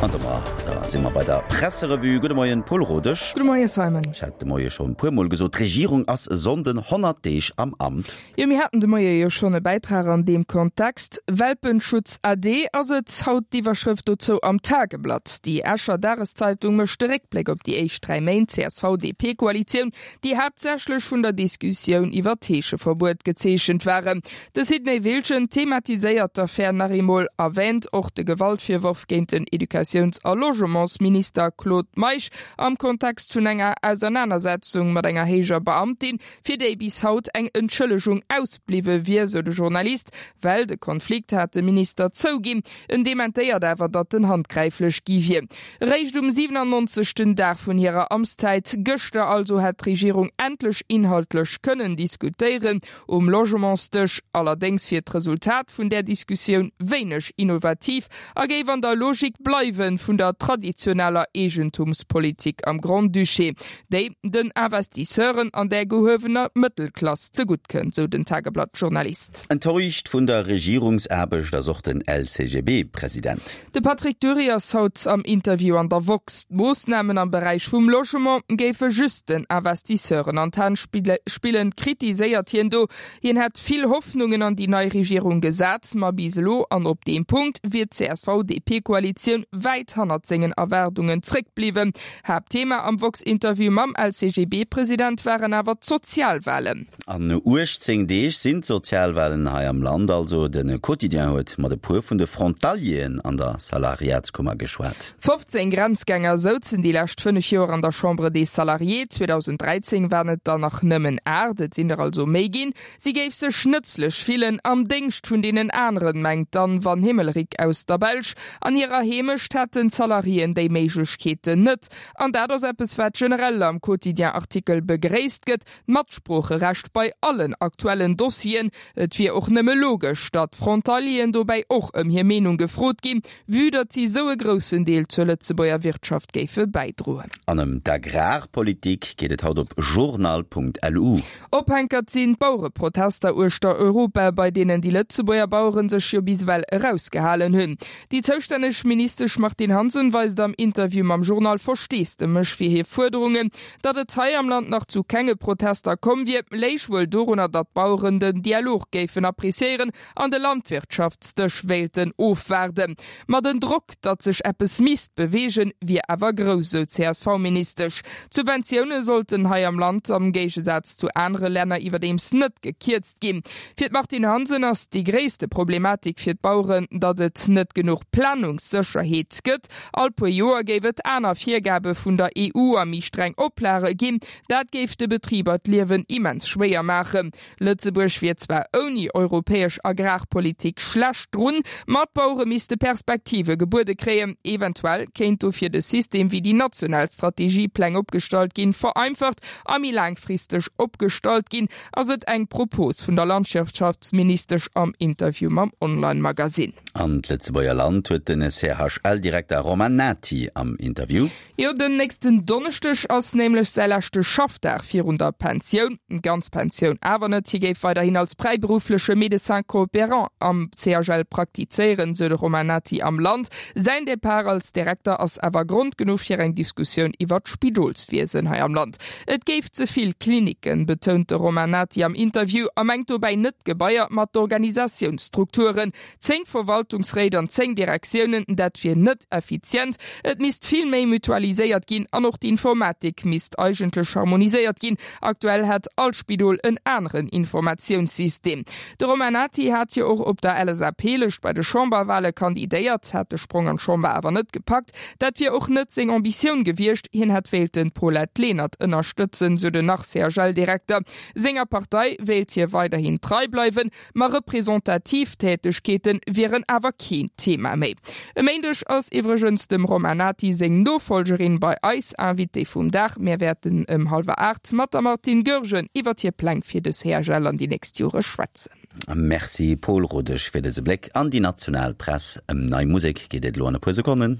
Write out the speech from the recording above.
An domadder si mer bei der Presserevue. Gudde Moien, Paul Rodesch. Gudde Moie Simon. Ech hat de Moie schonn e puer Mol gesot, d'Regierung ass e Sonnden 100 Deeg am Amt. Jo, mir haten de Moie jo schonn e Bäitrag an deem Kontext. Welpenschutz ade ass et haut d'Iwwerschrëft dozou am Tageblatt. Déi Escher Dageszeitung mécht de Réckbléck op déi éischt 3 Méint CSV-DP-Koalitioun, déi haaptsächlech vun der Diskussioun iwwer d'Heescheverbuet gezeechent waren. De Sidney Wiltgen thematiséiert d'Affär nach eemol, erwäänt och de Gewaltvirworf géint den Educatiouns a Logementsminister Claude Meisch am Kontext vun enger Ausernanersetzung mat enger héijer Beamtin, fir déi bis haut eng Entschëllegung ausbliwwe wier, sou de Journalist. Well de Konflikt hat de Minister zouginn. En dementéiert awer, datt en handgräiflech gi wier. Eréischt um 97. Dag vun hirer Amtszäit, gëschter also, hätt d'Regierung endlech inhaltlech kënnen diskutéieren. Um Logementsdësch allerdéngs wier d'Resultat vun där Diskussioun wéineg innovativ a géif an der Logik bleiwe vun der traditioneller Eegentumspolitik am Grand-Duché, déi den Investisseuren an der gehuewener Mëttelklass zegutt kënnt, sou den Tageblatt-Journalist. Enttäuscht vun der Regierungsaarbecht ass och den LCGB-President. De Patrick Dury ass haut am Interview an der woxx. D'Moossnamen am Beräich vum Logement géife just den Investisseuren an d'Hänn spillen, kritiséiert hien do. Hien hätt vill Hoffnungen an déi nei Regierung gesat, ma bis elo an op deem Punkt wier d'CSV-DP-Koalitioun wäit hannert sengen Erwaardungen zréckbliwwen. Haaptthema am woxx-Interview mam LCGB-President waren awer d'Sozialwalen. An 18 Deeg sinn d'Sozialwalen hei am Land. Also de Quotidien huet mat e puer vun de Frontalieren an der Salariatskummer geschwat. 15 Grenzgänger souzen déi lescht 5 Joer an der Chambre des Salariés. 2013 waren et der nach nëmmen 8, et sinn der also méi ginn. Si géif sech nëtzlech fillen am Déngscht vun deenen aneren, mengt d'Anne Van Hemelryck aus der Belsch. An hirer Heemecht hätten d'Salariéen déi Méiglechkeeten net. An dat ass eppes, wat generell am Quotidien-Artikel begréisst gëtt, d'Matsproocherecht bei allen aktuellen Dossieren. Et wier och nëmme logesch, datt d'Frontalieren dobäi och ëm hir Meenung gefrot ginn, vue datt si esou e groussen Deel zur Lëtzebuerger Wirtschaft géife bäidroen. An ëm d'Agrarpolitik geet et haut op journal.lu. Ophänkert sinn d'Bauereprotester uechter Europa, bei deenen déi Lëtzebuerger Baueren sech jo bis ewell erausgehalen hunn. Déi zoustänneg Ministesch Martine Hansen weist am Interview mam Journal Versteesdemech fir hir Fuerderungen. Datt et hei am Land nach zu kenge Protester komm wier, léich wuel dorunner, datt d'Baueren den Dialog géifen appreciéieren an de Landwirtschaftsdësch wéilten ofwaarden. Ma den Drock, datt sech eppes misst beweegen, wier awer grouss, sou d'CSV-Ministesch. D'Subventioune sollten hei am Land am Géigesaz zu anere Länner iwwerdeems net gekierzt ginn. Fir d'Martine Hansen ass déi gréisste Problematik fir d'Baueren, datt et net genuch Planungssécherheet gëtt. All puer Joer géif et aner Virgabe vun der EU a méi streng Oplage ginn. Dat géif de Betriber d'Liewen immens schwéier maachen. Lëtzebuerg wier zwar ouni europäesch Agrarpolitik schlecht drun, ma d'Bauere misste Perspektive gebuede kréien. Eventuell kéint dofir de System, wéi déi national Strategiepläng opgestallt ginn, vereinfacht a méi laangfristeg opgestallt ginn, ass et eng Propos vun der Landwirtschaftsministesch am Interview mam Online-Magasinn. An d'Lëtzebuerger Land huet den CHL-Direkter Romain Nati am Interview. Jo, den nächsten Donneschdeg ass nämlech säi leschte Schaffdag virun der Pensioun. Ganz Pensioun awer net, hie géif weiderhin als fräiberuffleche Médecin coopérant am CHL praktizéieren, sou de Romain Nati am Land. Säin Depart als Direkter ass awer Grond genuch fir eng Diskussioun iwwer d'Spidolswiesen hei am Land. Et géif ze vill Klinicken, betount de Romain Nati am Interview a mengt dobäi net d'Gebaier, ma d'Organisatiounsstrukturen. 10 Verwaltungsréit an 10 Direktiounen, dat wier net effizient. Et misst vill méi mutualiséiert ginn an och d'Informatik misst eigentlech harmoniséiert ginn. Aktuell hätt all Spidol en aneren Informatiounssystem. De Romain Nati hat jo och op der LSAP-Lëscht bei de Chamberwale kandidéiert, hat de Sprong an d'Chamber awer net gepackt. Dat wier och net seng Ambitioun gewiescht, hien hätt wéilten d'Paulette Lenert ënnerstëtzen, sou den Nach-CHL-Direkter. Senger Partei wéilt hie weiderhin trei bleiwen. Ma representativ Tätegkeete wieren awer keen Thema méi. E Méindeg ass iwwregens dem Romain Nati seng Nofollgerin bei eis Invitée vum Dag. Mir wäerten ëm hallwer 8 mat der Martine Goergen iwwert hir Pläng fir de CHL an déi nächst Jore schwätzen. Merci Paul Rodesch fir dëse Bléck an déi national Press. Ëm nei Musek geet et elo an e puer Sekonnen.